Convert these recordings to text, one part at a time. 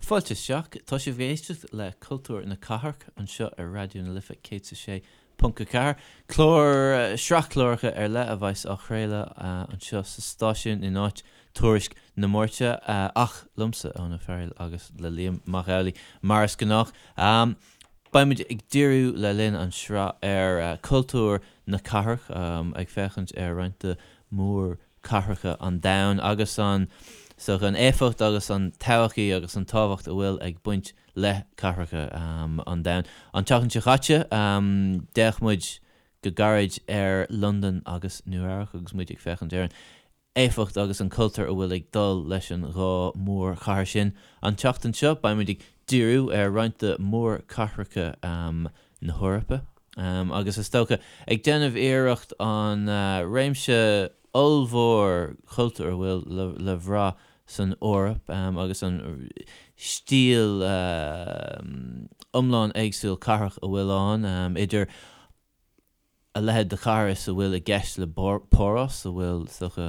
Fáilte isteach. Tá sibh ag éisteacht le Cultúr na Cathrach anseo ar Raidió na Life 106.4, clár, sraith cláracha ar leith a bheas á chraoladh anseo sa stáisiún in áit Tuairisc na Máirte, ach liomsa, Eoin Ó Fearghail, agus le Liam Mac Amhlaigh, mar is gnách. Beidh muid ag díriú le linn an sraith ar cultúr na cathrach, ag féachaint ar roinnt de mhór cathracha an domhain agus an so an éifeacht agus an todhchaí agus an tábhacht a bhfuil ag baint le cathracha an domhain. An tseachtain seo chaite, d'fhéach muid go gairid ar Londain agus Nua Eabhrac agus muid ag féachaint ar an éifeacht agus an cultúr a bhfuil ag dul leis an dhá mhórchathair sin. An tseachtain seo, beidh muid ag díriú ar roinnt de mhórchathracha na hEorpa agus is dócha ag déanamh iarracht an réimse ollmhór cultúr a bhfuil le bhrath san Eoraip agus an stíl iomlán éagsúil cathrach a bhfuil ann, idir a leithéid de chathair is a bhfuil i gceist le Páras, a bhfuil, is dócha,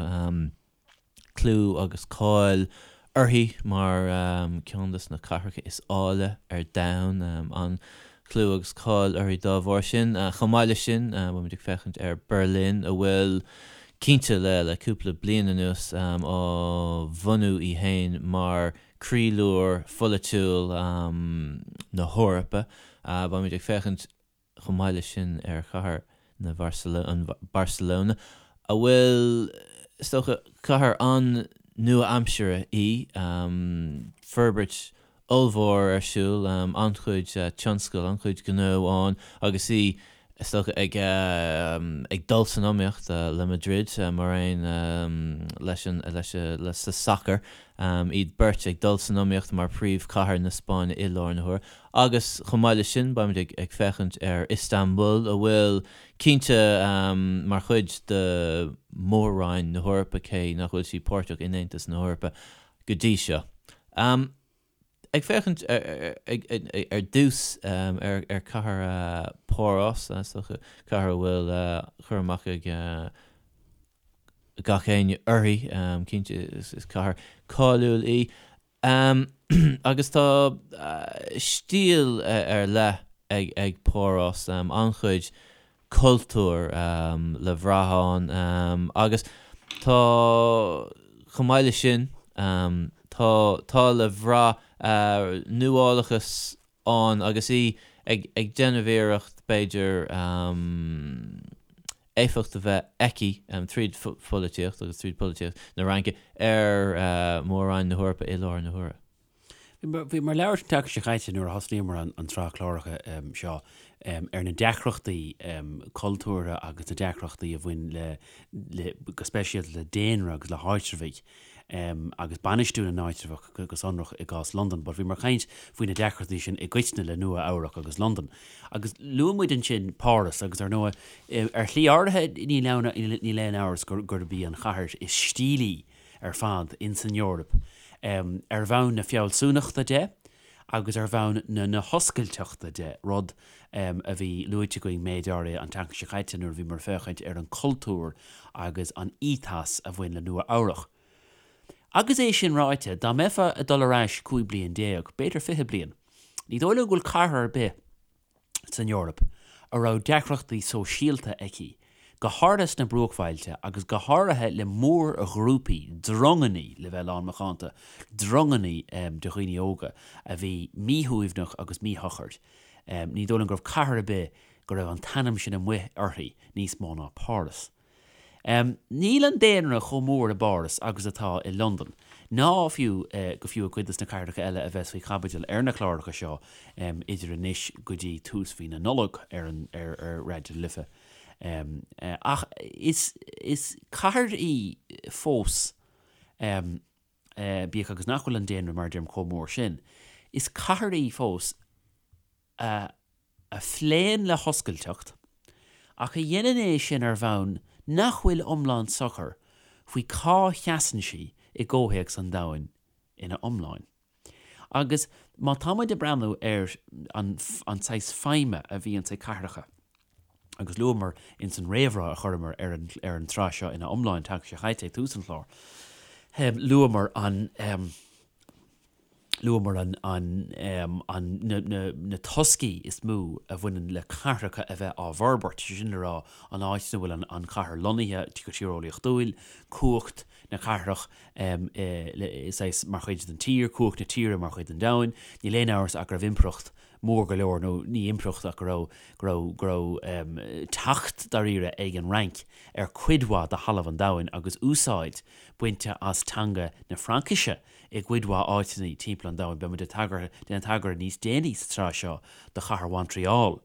clú agus cáil uirthi mar ceann de na cathracha is áille ar domhan, an-chlú agus cáil uirthi dá bharr sin. Chomh maith leis sin, beimid ag féachaint ar Berlin, a bhfuil, cinnte, le cúpla bliain anuas, á bhunú í féin mar croílár pholaitiúil na hEorpa. Beimid ag féachaint chomh maith leis sin ar chathair na Barcelona, a bhfuil, is dócha, cathair an-nua-aimseartha í, forbairt ollmhór ar siúl, an-chuid tionscal, an-chuid gnó ann agus í, is dócha, ag ag dul san iomaíocht le Madrid mar aon leis an leis sa sacar, iad beirt ag dul san iomaíocht mar phríomhchathair na Spáinne i láthair na huaire. Agus chomh maith leis sin, beimid ag féachaint ar Istanbul, a bhfuil cinnte mar chuid de Mhór-Roinn na hEorpa, cé nach bhfuil sí páirteach in Aontas na hEorpa go dtí seo. Ag féachaint ar dtús ar chathair Pháras, is dócha, cathair a bhfuil cur amach ag gach éinne uirthi, cinnte is cathair cáiliúil í. Agus tá stíl ar leith ag Páras, an-chuid cultúir le bhrath ann agus tá, chomh maith leis sin, tá, tá le bhrath nuálachas ann agus í ag déanamh iarracht, b'fhéidir, éifeacht a bheith aici, tríd pholaitíocht agus tríd polaitíocht na Fhraince, ar Mhór-Roinn na hEorpa i láthair na huaire. Bhíomar ag labhairt an tseachtain seo chaite nuair a thosnaíomar an tsraith cláracha seo ar na deacrachtaí cultúrtha agus na deacrachtaí a bhain le, go speisialta le daonra agus le háitreabhaigh. agus bainistiú na n-áitreabhach go sonrach i gcás Londan, but bhíomar ag caint faoi na deacrachtaí sin i gcoitinne le Nua Eabhrac agus Londain. Agus luaigh muid ansin Páras agus ar ndóigh, ar shlí áirithe níl aon níl aon amhras gurb í an chathair is stílí ar fad ins an Eoraip ar bhonn na fealsúnachta de agus ar bhonn na na hoscailteachta de, rud a bhí luaite againn méid áirithe an tseachtain seo caite nuair a bhíomar ag féachaint ar an cultúr agus an ethos a bhain le Nua Eabhrach. Agus é sin ráite, dá mbeifeá ag dul ar ais 15 bliain, b'fhéidir 20 bliain, ní dóigh liom go bhfuil cathair ar bith san Eoraip a raibh deacrachtaí sóisialta aici, go háirithe sna bruachbhailte agus go háirithe le mórghrúpaí, drongannaí, le bheith lán macánta, drongannaí de dhaoine óga a bhí míshuaimhneach agus míshocair. Ní dóigh liom go raibh cathair ar bith go raibh an t-ainm sin amuigh uirthi níos mó ná Páras. Níl an daonra chomh mór i bPáras agus atá i Londain, ná fiú go fiú i gcuid de na cathracha eile a bheas faoi chaibidil ar na cláracha seo idir anois go dtí tús mhí na Nollag ar ar Raidió na Life. Ach is is cathair í fós, bíodh agus nach bhfuil an daonra, mar a deirim, chomh mór sin, is cathair í fós a a phléann le hoscailteacht, ach a dhéanann é sin ar bhonn nach bhfuil iomlán socair faoi cá sheasann sí i gcomhthéacs an domhain ina iomláin. Agus má tá muid ag breathnú ar an an saghas feidhme a bhíonns ag cathracha, agus luamar ins an réamhrá a chuireamar ar an ar an tsraith seo ina iomláin an tseachtain seo chaite ag tús an chláir, luamar an. Luamar an, an, an, na, na, na toscaí is mó a bhaineann le cathracha a bheith á bhforbairt, sé sin le rá, an áit ina bhfuil an, an chathair lonnaithe go tíreolaíochtúil, cumhacht na cathrach le, saghas, mar chuid den tír, cumhacht na tíre mar chuid den domhan. Níl aon amhras ach go raibh impireacht mór go leor, nó ní impireacht ach go raibh, go raibh, go raibh teacht dáiríre ag an Fhrainc ar cuid mhaith de thalamh an domhain agus úsáid bainte as teanga na Fraincise i gcuid mhaith áiteanna timpeall an domhain. Beidh muid ag tagairt, déanamh tagairt níos déanaí sa tsraith seo do chathair Mhontreal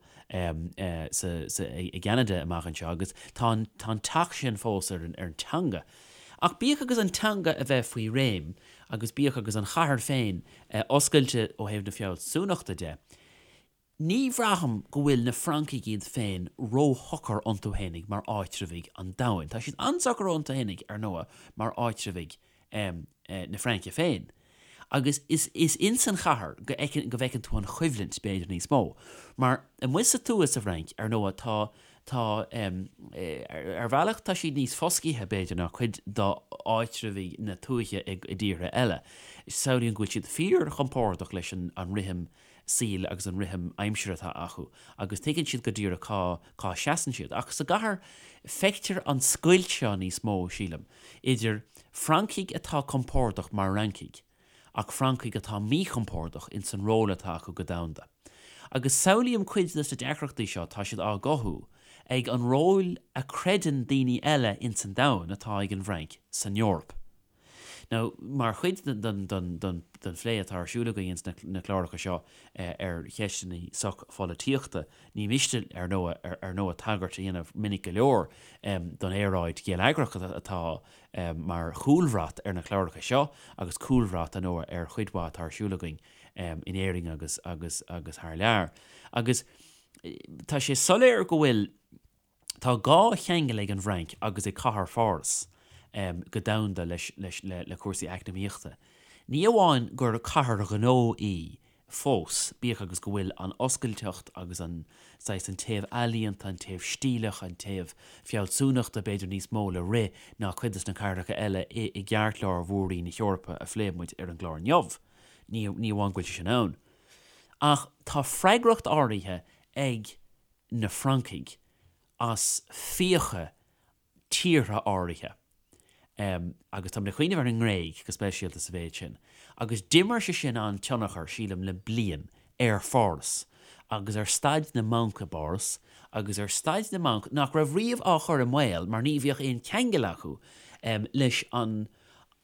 sa, sa, i gCeanada amach anseo agus tá an, tá an teacht sin fós ar an, ar an teanga. Ach bíodh agus an teanga a bheith faoi réim agus bíodh agus an chathair féin oscailte ó thaobh na fealsúnachta de, Ní bhraithim go bhfuil na Francaigh iad féin róshocair iontu fhéinig mar áitreabhaigh an domhain. Tá siad an-socair iontu fhéinig, ar ndóigh, mar áitreabhaigh na Fraince féin. Agus is is ins an chathair go fheiceann go bhfeiceann tú an choimhlint, b'fhéidir, níos mó. Mar amuigh sa tuath sa bhFrainc, ar ndóigh, tá tá ar bhealach tá siad níos foscaithe, b'fhéidir, ná cuid d'áitreabhaigh na tuaithe i dtíortha eile. Samhlaím go bhfuil siad fíorchompordach leis an an rithim saoil agus an rithim aimsire atá acu agus tuigeann siad go díreach cá cá seasann siad. Ach sa gcathair feictear an scoilt seo níos mó, sílim, idir Francaigh atá compordach mar Fhrancaigh ach Francaigh atá míchompordach ins an ról atá acu go domhanda. Agus samhlaím cuid de na deacrachtaí seo, tá siad á gcothú ag an ról a creideann daoine eile ins an domhan atá ag an bhFrainc san Eoraip. Now, mar chuid den phlé atá ar siúl againn ins na cláracha seo ar cheisteanna soch-pholaitíochta, ní miste, ar ndóigh, ar ndóigh tagairt a dhéanamh minic go leor don aeráid gheilleagrach atá mar chúlbhrat ar na cláracha seo agus cúlbhrat, ar ndóigh, ar chuid mhaith atá ar siúl againn in Éirinn agus agus agus thar lear. Agus tá sé soiléir go bhfuil. Tá dhá cheangal ag an bhFrainc agus ag cathair Pháras go domhanda leis le cúrsaí eacnamaíochta. Ní amháin gur cathair ghnó í fós, bíodh agus go bhfuil an oscailteacht agus an saghas, an taobh ealaíonta, an taobh stíleach, an taobh fealsúnachta b'fhéidir níos mó le rith ná cuid de na cathracha eile i gceartlár mhór-roinn na hEorpa a phléigh muid ar an gclár inniu. Ní amháin go bhfuil sé sin ann, ach tá freagracht áirithe ag na Francaigh as fiacha tíortha áirithe, agus táim ag cuimhneamh ar an nGréig go speisialta sa mhéid sin, agus d'imir sé sin an-tionchar, sílim, le bliain ar Pháras agus ar staid na mbanc i bPáras agus ar staid na mbanc nach raibh riamh á chur i mbaol mar ní bheadh aon cheangal acu leis an,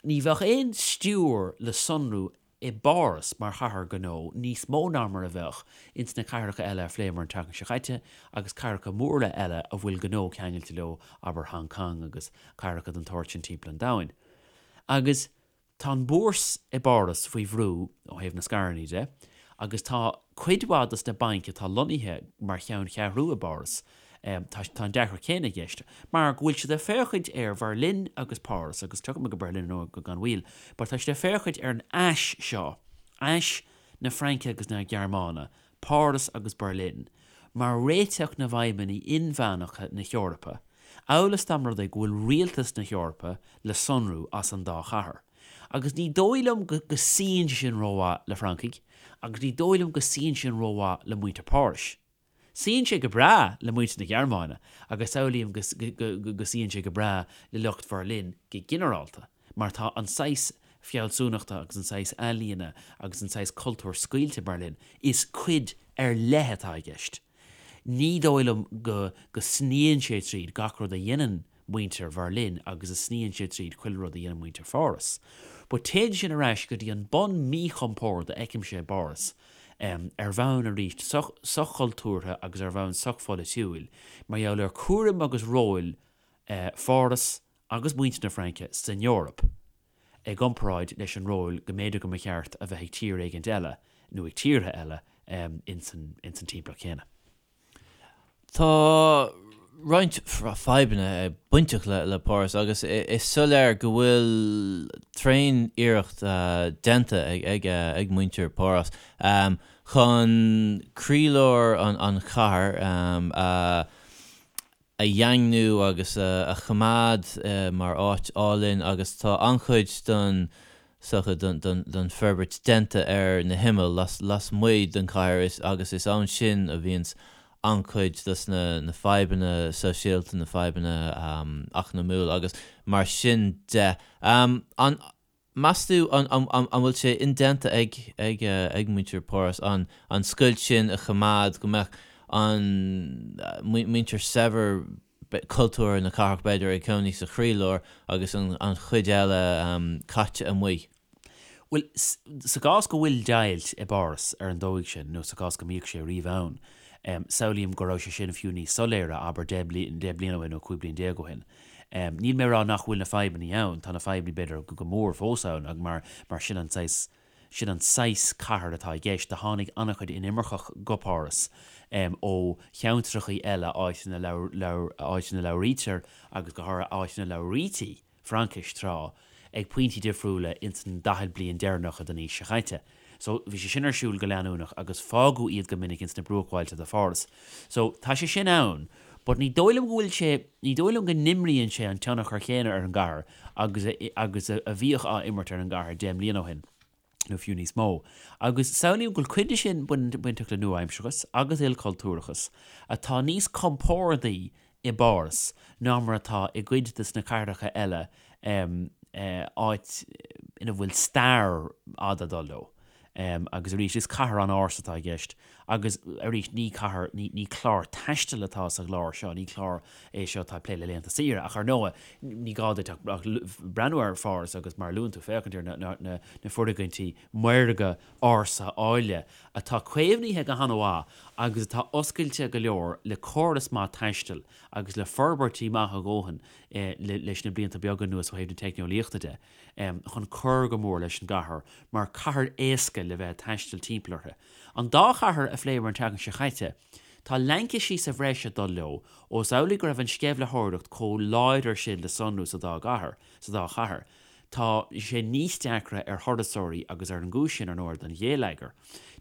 ní bheadh aon stiúir le sonrú i bPáras mar chathair ghnó níos mó ná mar a bheadh ins na cathracha eile a phléamar an tseachtain seo caite agus cathracha móra eile a bhfuil gnó ceangailte leo, abair Hong Kong agus cathracha den tsórt sin timpeall an domhain. Agus tá an búrs i bPáras faoi bhrú ó thaobh na scaireanna de agus tá cuid mhaith dos na bainc atá lonnaithe mar cheanncheathrú i bPáras Tá an deacracht chéanna i gceist, mar go bhfuil siad ag féachaint ar Bherlin agus Páras, agus tiocfaidh muid go Berlin ar ndóigh gan mhoill, but tá siad ag féachaint ar an ais seo, ais na Fraince agus na Gearmáine, Páras agus Berlin, mar réiteach na bhfadhbanna inmheánacha na hEorpa, amhail is dá mba rud é go bhfuil rialtas na hEorpa le sonrú as an dá chathair. Agus ní dóigh liom go suíonn sé sin rómhaith le Francaigh, agus ní dóigh liom go suíonn sé sin rómhaith le muintir Phárais. Suíonn sé go breá le muintir na Gearmáine agus samhlaím go suíonn sé go breá le lucht Bherlin go ginearálta mar tá an saghas fealsúnachta agus an saghas ealaíona agus an saghas cultúir scaoilte Berlin, is cuid ar leith atá i gceist. Ní dóigh liom go go sníonn sé tríd gach rud a dhéanann muintir Bherlin agus a sníonn sé tríd chuile rud a dhéanann muintir Pháras. But téann sin ar ais go dtí an bun míchompord a fheicimse i bPáras, ar bhonn arís soch-chultúrtha agus ar bhonn soch-pholaitiúil, mar gheall ar cúram agus róil Pháras agus muintir na Fraince san Eoraip i gcomparáid leis an ról go mb'fhéidir go mba cheart a bheith ag tír éigint eile nó ag tíortha eile ins an timpeallacht chéanna. Tá roinnt fadhbanna bainteach le Páras agus is soiléir go bhfuil tréan-iarracht déanta ag muintir Páras chun croílár an chathair a dhaingniú agus a choimeád mar áit álainn agus tá an-chuid den. is dócha, den forbairt déanta ar na himill lasmuigh den chathair agus is ann sin a bhíonns an-chuid dos na fadhbanna sóisialta, na fadhbanna eacnamúla agus mar sin de. An meas tú an bhfuil sé indéanta ag ag muintir Pháras an scoilt sin a choimeád, go mbeadh an muintir saibhir cultúrtha na cathrach, b'fhéidir, ag cónaí sa chroílár agus an chuid eile caite amuigh. Bhuel, sa gcás go bhfuil deighilt i bPáras ar an dóigh sin, nó sa gcás go mbíodh sé riamh ann, samhlaím go raibh sé sin fiú níos soiléire, abair, deich bliana ó shin nó 15 bliain ó shin. Níl mé ag rá nach bhfuil na fadhbanna ann, tá na fadhbanna, b'fhéidir, go mór fós ann, mar mar sin an saghas Sin an saghas cathair atá i gceist. Do tháinig an-chuid inimirceach go Páras ó cheantrachaí eile, áit ina áit ina labhraítear agus go háirithe áit ina labhraítí Fraincis tráth, ag pointí difriúla ins an 40 bliain deireanacha den aois seo chaite. So, bhí sé sin ar siúl go leanúnach agus fágadh iad go minic ins na bruachbhailte de Pháras. So, tá sé sin ann, but ní dóigh liom go bhfuil sé, ní dóigh liom go n-imríonn sé an tionchar chéanna ar an gcathair agus a, agus a bhíodh á imirt ar an gcathair 10 mbliana ó shin, nó fiú níos mó. Agus samhlaím go bhfuil cuid de sin bainteach le nua-aimsearachas agus ilchultúrachas atá níos compórdaí i bPáras ná mar atá i gcuid de na cathracha eile, áit ina bhfuil stair fhada ag dul leo. Agus arís, is cathair an-ársa atá i gceist. Agus arís, ní cathair, ní clár taistil atá sa gclár seo, ní clár é seo atá ag plé le laethanta saoire. Ach ar ndóigh, ní gá duit ach breathnú ar Pháras agus, mar a luann tú, féachaint ar na foirgintí maorga ársa áille atá caomhnaithe go han-mhaith agus atá oscailte go leor le córas maith taistil agus le forbairtí maithe a dhóthain leis na blianta beaga anuas ó thaobh na teicneolaíochta de chun cur go mór leis an gcathair mar cathair éasca le bheith ag taisteal timpeall uirthi. An dá chathair a phléamar an tseachtain seo chaite, tá laincisí sa bhreis ag dul leo ós amhlaidh go raibh an sceimhlitheoireacht chomh láidir sin le sonrú sa dá gcathair, sa dá chathair. Tá sé níos deacra ar thurasóirí agus ar an gcúis sin, ar ndóigh, don ghéilleagar,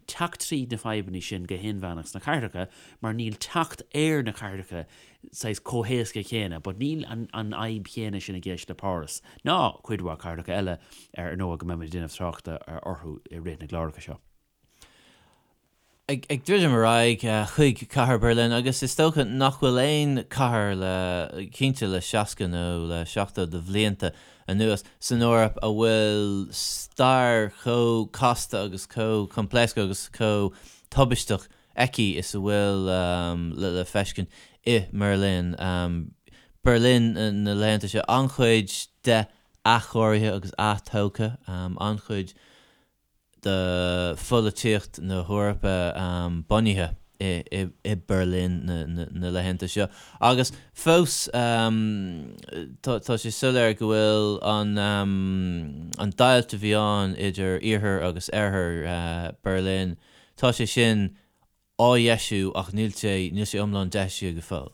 teacht tríd na fadhbanna sin go hinmheánach sna cathracha mar níl teacht ar na cathracha saghas chomh héasca céanna but níl an an fhadhb chéanna sin i gceist le Páras ná cuid mhaith cathracha eile ar ndóigh go mbeimid ag déanamh tráchta orthu i rith na gcláracha seo. Ag druidim ar aghaidh chuig cathair Berlin, agus is dócha nach bhfuil aon chathair le, cinnte le 60 nó le 70 de bhlianta anuas, san Eoraip a bhfuil stair chomh casta agus chomh coimpléascach agus chomh tubaisteach aici is a bhfuil le feiscint i mBerlin. Berlin na laethanta seo, an-chuid de athchóirithe agus athtógtha, an-chuid de pholaitíocht na hEorpa bunaithe i Berlin na laethanta seo. Agus fós tá sé soiléir go bhfuil an an deighilt a bhí ann idir iarthar agus oirthear Berlin, tá sé sin á dheisiú ach níl sé, níl sé iomlán deisithe go fóill.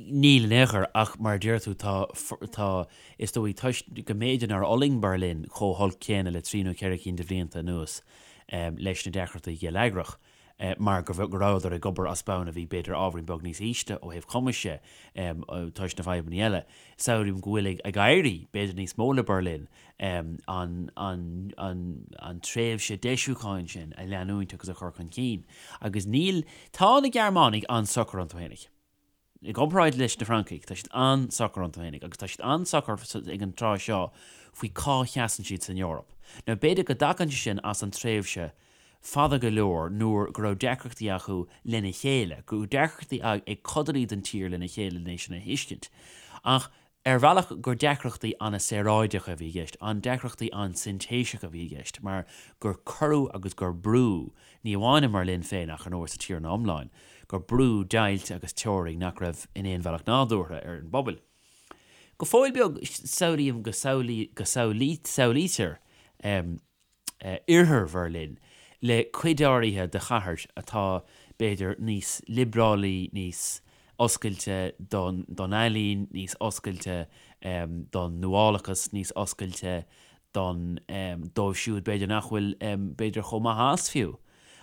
Níl in aon chor, ach mar a deir tú, tá, tá, is dóigh, toisc go mb'fhéidir nár fhulaing Berlin chomh holc céanna le trí nó ceithre cinn de bhlianta anuas leis na deacrachtaí geilleagrach, mar go rabhadar ag obair as bonn a bhí b'fhéidir ábhairín beag níos ísle ó thaobh cumais de toisc na fadhbanna eile. Samhlaím go bhfuil ag éirí b'fhéidir níos mó le Berlin an tréimhse deisiúcháin sin a leanúint agus a chur chun cinn. Agus níl, tá na Gearmánaigh an-socair iontu fhéinig. I gcomparáid leis na Francaigh, tá siad an-socair iontu fhéinig agus tá siad an-socair ag an tráth seo faoi cá sheasann siad san Eoraip. Now b'fhéidir go dtagann sé sin as an tréimhse fada go leor nuair go raibh deacrachtaí acu lena chéile, go raibh deacrachtaí ag codanna den tír lena chéile lena sin a thuiscint. Ach ar bhealach gur deacrachtaí an-saoráideacha a bhí i gceist, an deacrachtaí an-sintéiseacha a bhí i gceist, mar gur cuireadh agus gur brúdh, ní amháin i mBerlin féin ach ar ndóigh sa tír ina iomláin, gur brúdh deighilt agus teorainn nach raibh in aon bhealach nádúrtha ar an bpobal. Go fóill beag, samhlaím go samhlaítear oirthear Bherlin le cuid áirithe de chathair atá, b'fhéidir, níos liobrálaí, níos oscailte don ealaín, níos oscailte don nuálachas, níos oscailte don, dóibh siúd, b'fhéidir, nach bhfuil, b'fhéidir, chomh maith as fiú,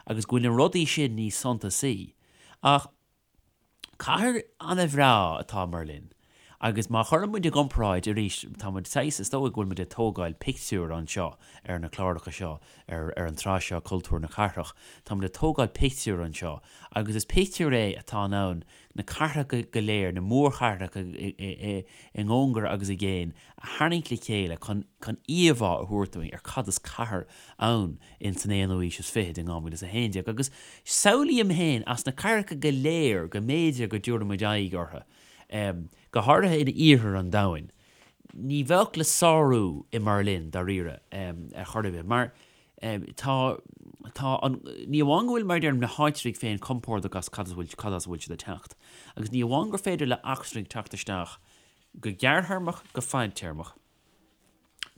agus go bhfuil na rudaí sin níos suntasaí. Ach. Cathair an-bhreá atá i mBerlin. Agus má chuireann muid i gcomparáid arís, tá muid saghas, is dóigh go bhfuil muid ag tógáil pictiúr anseo ar na cláracha seo, ar ar an tsraith seo Cultúr na Cathrach, tá muid ag tógáil pictiúr anseo agus is pictiúr é atá in ann na cathracha go léir, na mórchathracha i gcóngar agus i gcéin a tharraingt le chéile chun chun íomhá a thabhairt dúinn ar cad is cathair ann in san aonú aois is fichid in 2011. Agus samhlaím féin as na cathracha go léir go mb'fhéidir go dtabharfaidh muid aghaidh orthu, Go háirithe in iarthar an domhain, ní bheadh le sárú i mBerlin, dáiríre, ar chor ar bith, mar tá, tá an, ní amháin go bhfuil, mar a deirim, na háitribh féin compordach as cad as a bhfuil, cad as a bhfuil siad ag teacht, agus ní amháin gur féidir le eachtrainigh teacht isteach go gearrthéarmach, go fadtéarmach,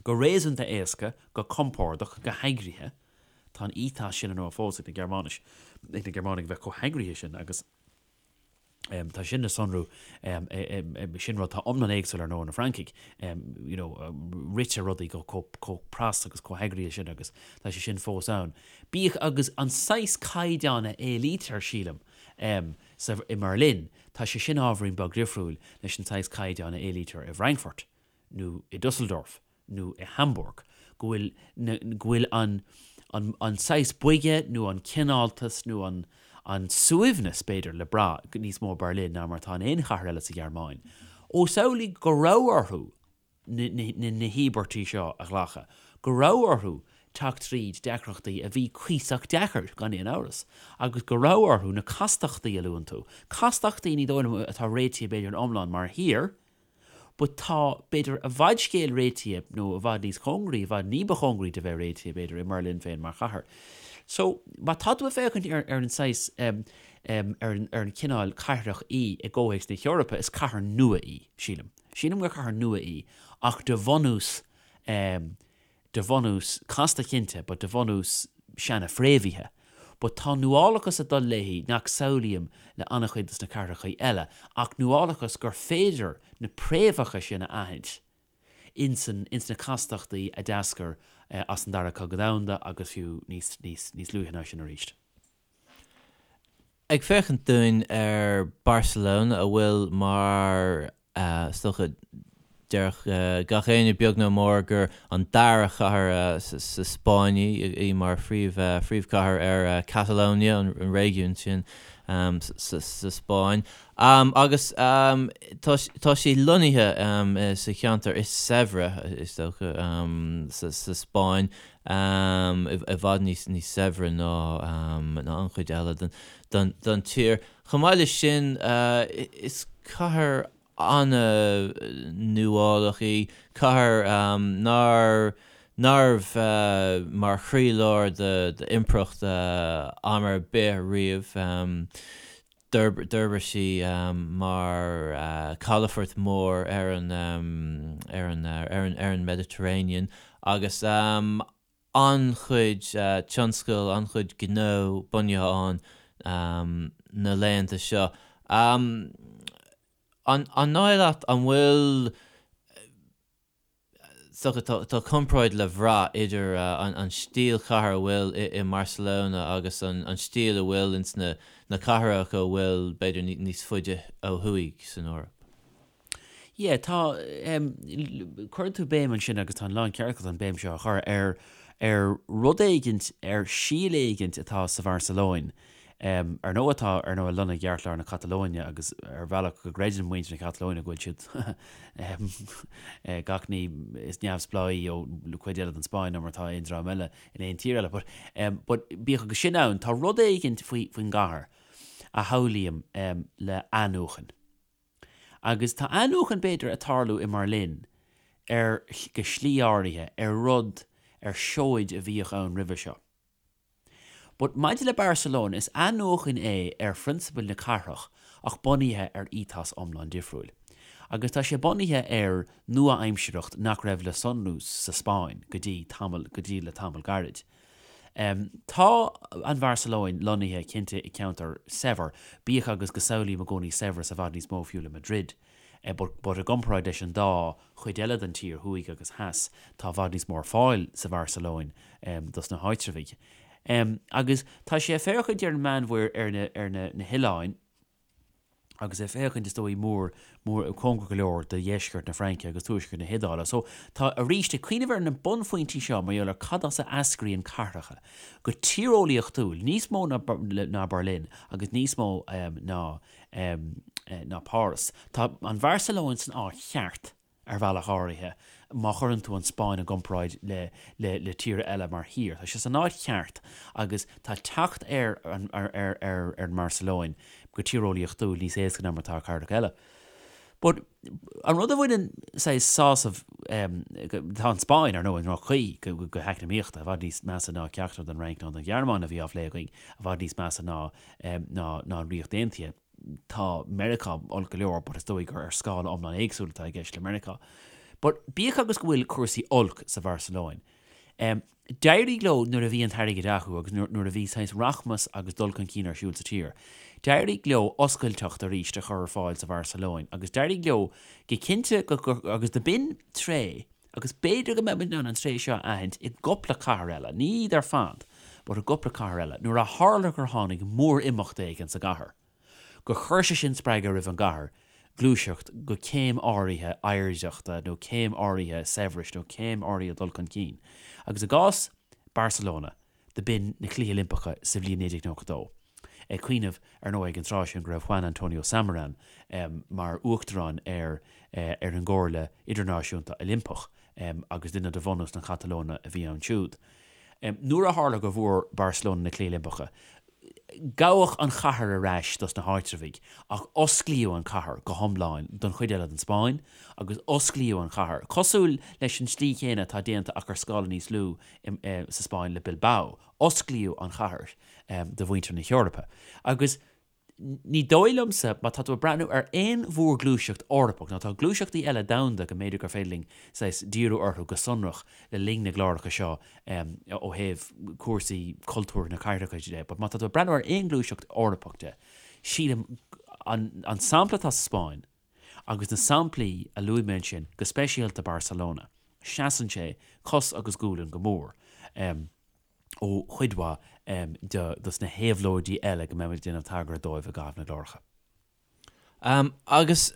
go réasúnta éasca, go compordach, go heagraithe, tá an ethos sin ar ndóigh fós ag na Gearmáinis, ag na Gearmánaigh a bheith chomh heagraithe sin agus. Tá sin le sonrú, sin rud atá iomlán éagsúil ar ndóigh na Francaigh, you know, ritear rudaí go chomh pras agus chomh heagraithe sin agus tá sé sin fós ann. Bíodh agus an saghas caighdeán a éilítear, sílim, sa, i mBerlin, tá sé sin ábhairín beag difriúil leis an saghas caighdeán a éilítear i bhFrankfurt nó i Dusseldorf. nó i Hamburg, go bhfuil na, go bhfuil an, an, an saghas boige nó an cineáltas nó an, an suaimhneas, b'fhéidir, le brath níos mó i Berlin ná mar atá in aon chathair eile sa Ghearmáin. Ós amhlaidh go raibh orthu na, na, na, na híobairtí seo a ghlacadh, go raibh orthu teacht tríd deacrachtaí a bhí cuíosach deacair, gan aon amhras, agus go raibh orthu na castachtaí a luann tú, castachtaí ní dóigh liom atá réitithe b'fhéidir in iomlán mar thír, But tá, b'fhéidir, i bhfad scéal réitithe, nó i bhfad níos cóngaraí, i bhfad ní ba chóngaraí de bheith réitithe, b'fhéidir, i mBerlin féin mar chathair. So, má tá tú ag féachaint ar, ar an saghas, em, em, ar an, ar an cineál cathrach í i gcomhthéacs na hEorpa, is cathair nua í, sílim. Sílim gur cathair nua í, ach de bhunús, em, de bhunús casta cinnte but de bhunús seana-fhréamhaithe. But tá nuálachas ag dul léi nach samhlaím le an-chuid dos na cathrachaí eile ach nuálachas gur féidir na préamhacha sin a aithint ins ins na castachtaí a d'eascair as an Dara Cogadh Domhanda agus fiú níos níos níos luaithe ná sin arís. Ag féachaint dúinn ar Barcelona, a bhfuil mar, is dócha, déarfadh gach éinne beag nó mór gur an dara chathair sa Spáinn í, í mar phríomhchathair ar Catalonia, an réigiún sin sa Spáinn. Agus tá sí lonnaithe sa cheantar is saibhre, is dócha, sa Spáinn. i bhfad níos saibhre ná an chuid eile den tír. Chomh maith leis sin, is cathair an-nuálach í, cathair nár nárbh mar chroílár d'impireacht am ar bith riamh. D'fhorbair sí mar calafort mór ar an ar an ar an ar an Mediterranean agus an-chuid tionscal, an-chuid gnó bunaithe ann na laethanta seo. An dóigh leat an bhfuil Is dócha, tá comparáid le bhrath idir an stíl chathair a bhfuil i mBarcelona agus an stíl a bhfuil ins na cathracha a bhfuil, b'fhéidir, níos faide ó thuaidh san Eoraip. Yeah, tá, cuireann tú béim ansin agus tá an lán ceart agat an béim seo a chur ar ar rud éigint, ar síol éigint atá sa Bharcelóin Ar ndóigh atá, ar ndóigh, lonnaithe i gceartlár na Catalóine agus ar bhealach go gcreideann muintir na Catalóine go bhfuil siad gach ní is neamhspleáí ó chuid eile den Spáinn ná mar atá aon dream eile in aon tír eile. But, but bíodh agus sin ann, tá rud éigint faoi, faoin gcathair a shamhlaím le athnuachan. Agus tá athnuachan b'fhéidir ag tarlú i mBerlin ar, go slí áirithe, ar rud, ar seoid a bhíodh ann roimhe seo. But maidir le Barcelona, is athnuachan é ar phrionsabail na cathrach ach bunaithe ar ethos iomlán difriúil. Agus tá sé bunaithe ar nua-aimsireacht nach raibh le sonrú sa Spáinn go dtí tamall, go dtí le tamall gairid. Tá an Bharcelóin lonnaithe cinnte i ceantar saibhir, bíodh agus go samhlaím i gcónaí saibhreas i bhfad níos mó fiú le Madrid. But i gcomparáid leis an dá chuid eile den tír, thuaidh agus theas, tá i bhfad níos mó ar fáil sa Bharcelóin dos na háitreabhaigh. Agus tá sé ag féachaint ar an Meánmhuir, ar na, ar na, na hoileáin. Agus ag féachaint, is dóigh, mór, mór, cóngarach go leor do dheisceart na Fraince agus tuaisceart na hIodáile. So, tá, arís, ag cuimhneamh ar na bunphointí seo mar gheall ar cad as a eascraíonn cathracha, go tíreolaíochtúil, níos mó ná, ná Berlin agus níos mó ná, ná Páras. Tá an Bharcelóin san áit cheart. ar bhealach áirithe, má chuireann tú an Spáinn i gcomparáid le le le tíortha eile mar thír. Tá sé san áit cheart agus tá teacht ar an ar ar ar an mBarcelóin go tíreolaíochtúil níos éasca ná mar atá ar cathracha eile. But an rud a bhaineann saghas sásamh tá an Spáinn, ar ndóigh, i ndroch-chaoi go go heacnamaíochta, i bhfad níos measa ná ceachtar den Fhrainc ná den Ghearmáin a bhí á phlé againn, i bhfad níos measa ná ná ná an Ríocht Aontaithe. Tá Meiriceá olc go leor but is dóigh gur ar scála iomlán éagsúil atá i gceist le Meiriceá. But bíodh agus go bhfuil cúrsaí olc sa Bharcelóin, em, d'éirigh leo nuair a bhí an t-airgead acu agus nuair, nuair a bhí saghas rachmas agus dul chun cinn ar siúl sa tír, d'éirigh leo oscailteacht arís a chur ar fáil sa Bharcelóin agus d'éirigh leo go cinnte go, go, agus do b'in tréith agus b'fhéidir go mbeidh muid in ann an tréith seo a aithint i gcupla cathair eile, ní iad ar fad, but i gcupla cathair eile, nuair a tharla gur tháinig mór-imeacht éigin sa gcathair, gur chuir sé sin spreagadh roimh an gcathair gluaiseacht go céim áirithe oidhreachta nó céim áirithe saibhris nó céim áirithe dul chun cinn. Agus i gcás Barcelona, do b'in na Cluichí Oilimpeacha sa bhliain 1992. Ag cuimhneamh, ar ndóigh, ag an tráth sin go raibh Juan Antonio Samaranch mar uachtarán ar ar an gComhairle Idirnáisiúnta Oilimpeach agus duine de bhunús na Catalóine a bhí ann siúd. Nuair a tharla go bhfuair Barcelona na Cluichí Oilimpeacha, Gabhadh an chathair ar ais dos na háitreabhaigh ach osclaíodh an chathair go hiomlán don chuid eile den Spáinn agus osclaíodh an chathair, cosúil leis an tslí chéanna atá déanta ach ar scála níos lú sa Spáinn le Bilbao, osclaíodh an chathair do mhuintir na hEorpa. Agus ní dóigh liomsa, má tá tú ag breathnú ar aon mhórghluaiseacht Eorpach, nó tá gluaiseachtaí eile domhanda go mb'fhéidir gur féidir linn saghas díriú orthu go sonrach le linn na gcláracha seo, ó thaobh cúrsaí cultúir na cathracha de, but má tá tú ag breathnú ar aon ghluaiseacht Eorpach de, sílim an an sampla atá sa Spáinn agus na samplaí a luaigh mé ansin, go speisialta Barcelona, seasann sé cos agus gualainn go mór ó chuid mhaith de dos na héabhlóidí eile go mbeimid ag déanamh tagartha dóibh i gcaitheamh na gcláracha. Agus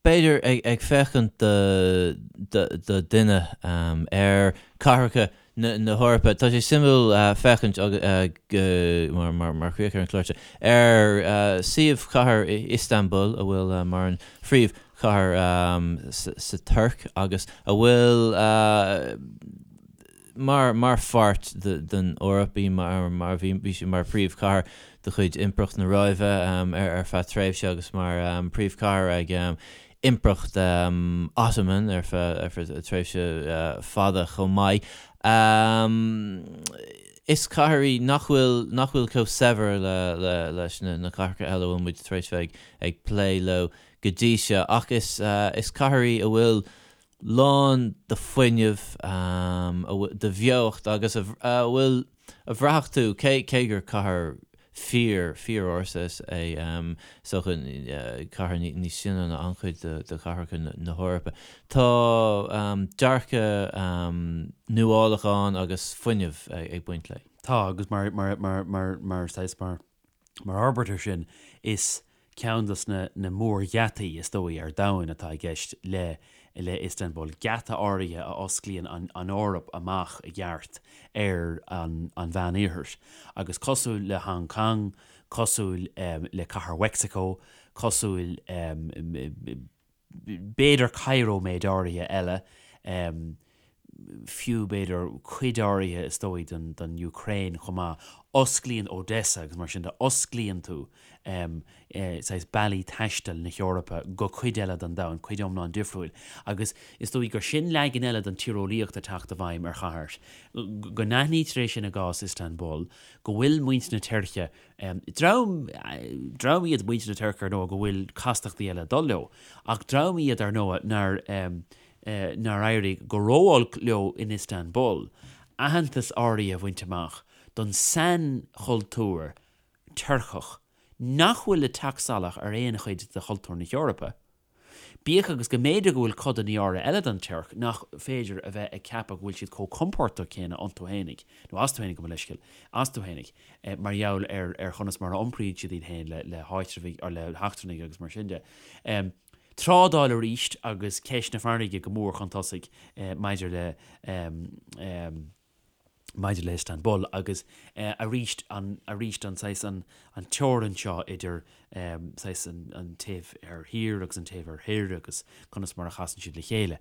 b'fhéidir ag féachaint do dhuine ar cathracha na hEorpa, tá sé suimiúil féachaint mar chríoch ar an chlár seo ar suíomh chathair Istanbul, a bhfuil mar an phríomhchathair sa Tuirc agus a bhfuil mar mar pháirt den Eoraip í mar mar bhí bhí sí mar phríomhchathair de chuid Impireacht na Róimhe ar ar feadh tréimhse agus mar phríomhchathair ag Impireacht Ottoman ar feadh ar feadh tréimhse fada chomh maith. Is cathair í nach bhfuil nach bhfuil chomh saibhir le le leis na na cathracha eile a bhfuil muid tar éis bheith ag ag plé leo go dtí seo ach is is cathair í a bhfuil lán de fuinneamh, de bheocht agus a bhfuil, a bhraithfeadh tú, cé, cé gur cathair fíor, fíor-ársa is é, is dócha, cathair níos sine ná an-chuid de chathracha na hEorpa. Tá dearcadh nuálach ann agus fuinneamh ag baint léi. Tá, agus mar, mar, mar, mar, mar, saghas, mar, Mar fhorbairt air sin, is ceann de na na mórgheataí, is dóigh, ar domhan atá i gceist le le Istanbul, geata áirithe a osclaíonn an an Eoraip amach i gceart ar an an Mheánoirthear. Agus cosúil le Hong Kong, cosúil le Cathair Mheicsiceo, cosúil b'fhéidir Cairo méid áirithe eile, fiú b'fhéidir cuid áirithe is dóigh den den Ukraine chomh maith, osclaíonn Odessa agus mar sin de, osclaíonn tú saghas bealaí taistil na hEorpa go cuid eile den domhan, cuid iomlán difriúil. Agus is dóigh gur sin leagan eile den tíreolaíocht ag teacht i bhfeidhm ar chathair. Go n-aithnítear é sin i gcás Istanbul, go bhfuil muintir na Tuirce Dream, dream iad muintir na Tuirce ar ndóigh go bhfuil castachtaí eile ag dul leo, ach dream iad ar ndóigh nár, nár éirigh go ró-olc leo in Istanbul aitheantas áirithe a bhaint amach don sainchultúr Tuirceach nach bhfuil ag teacht salach ar aon chuid de chultúr na hEorpa. Bíodh agus go mb'fhéidir go bhfuil codanna áirithe eile den Tuirc nach féidir a bheith ag ceapadh go bhfuil siad chomh compordach céanna iontu fhéinig, nó astu fhéinig, gabh mo leithscéal, astu fhéinig, mar gheall ar ar chonas mar a iompraíonn siad iad féin le le háitreabhaigh, or le heachtrannaigh agus mar sin de. Trádáil arís agus ceist na farraige go mór chun tosaigh maidir le maidir le Istanbul agus arís an arís an saghas an an teorainn seo idir saghas an an taobh thoir thiar agus an taobh thoir thoir agus conas mar a chasann siad le chéile.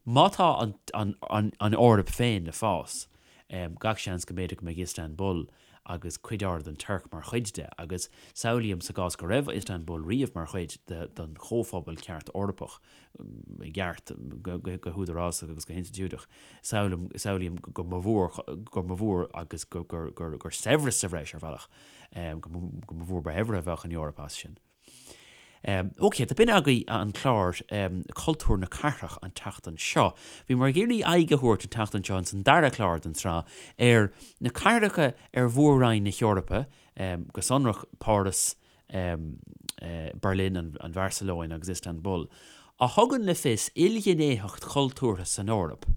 Má tá an an an an Eoraip féin le fás, gach seans go mb'fhéidir go mbeidh Istanbul agus cuid áirithe den Tuirc mar chuid de, agus samhlaím sa gcás go raibh Istanbul riamh mar chuid de den chomhphobal ceart Eorpach, i gceart, go húdarásach agus go hinstitiúideach, samhlaím, samhlaím go mba mhór, go mba mhór agus gur, gur, gur, gur saibhreas sa bhreis ar bhealach, go mba mhór ba shaibhre a bheadh an Eoraip as sin. Ok, do b'in agaibh an clár Cultúr na Cathrach an tseachtain seo. Bhíomar ag iarraidh aghaidh a thabhairt an tseachtain seo ins an dara clár den tsraith ar na cathracha ar mhór-roinn na hEorpa, go sonrach Páras, Berlin, an Bharcelóin agus Istanbul, a thugann le fios ilghnéitheacht chultúrtha san Eoraip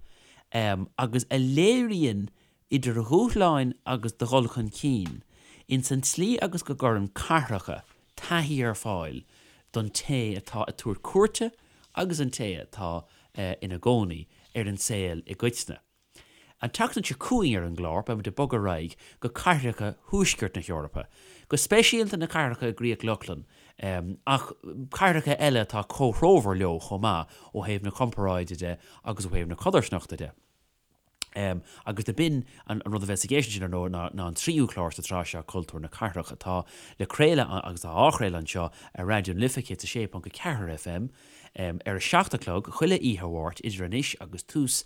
agus a léiríonn idir dhúshláin agus do dhul chun cinn, ins an tslí agus go gcuireann cathracha taithí ar fáil don té atá ag tabhairt cuairte agus an té atá ina gcónaí ar an saol i gcoitinne. An tseachtain seo chugainn ar an gclár, beimid ag bogadh ar aghaidh go cathracha thuaisceart na hEorpa, go speisialta na cathracha i gCríoch Lochlann, ach cathracha eile atá comhthreomhar leo chomh maith ó thaobh na comparáide de agus ó thaobh na codarsnachta de. Agus do b'in an rud a bheas i gceist ansin, ar ndóigh, ná an tríú clár sa tsraith seo, Cultúr na Cathrach, atá le craoladh agus atá á chraoladh anseo ar Raidió na Life 106.4 FM ar a 7 a chlog chuile oíche Mháirt idir anois agus tús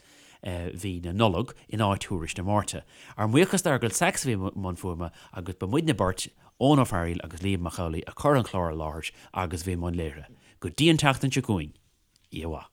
mhí na Nollag in áit Thuairisc na Máirte. Ár mbuíochas d'Fheargal Sachs a bhí i mbun fuaime agus ba muidne beirt, Eoin Ó Fearghaíl agus Liam Mac Amhlaigh, a chuir an clár i láthair agus a bhí i mbun léirithe. Go dtí an tseachtain seo chugainn, oíche mhaith.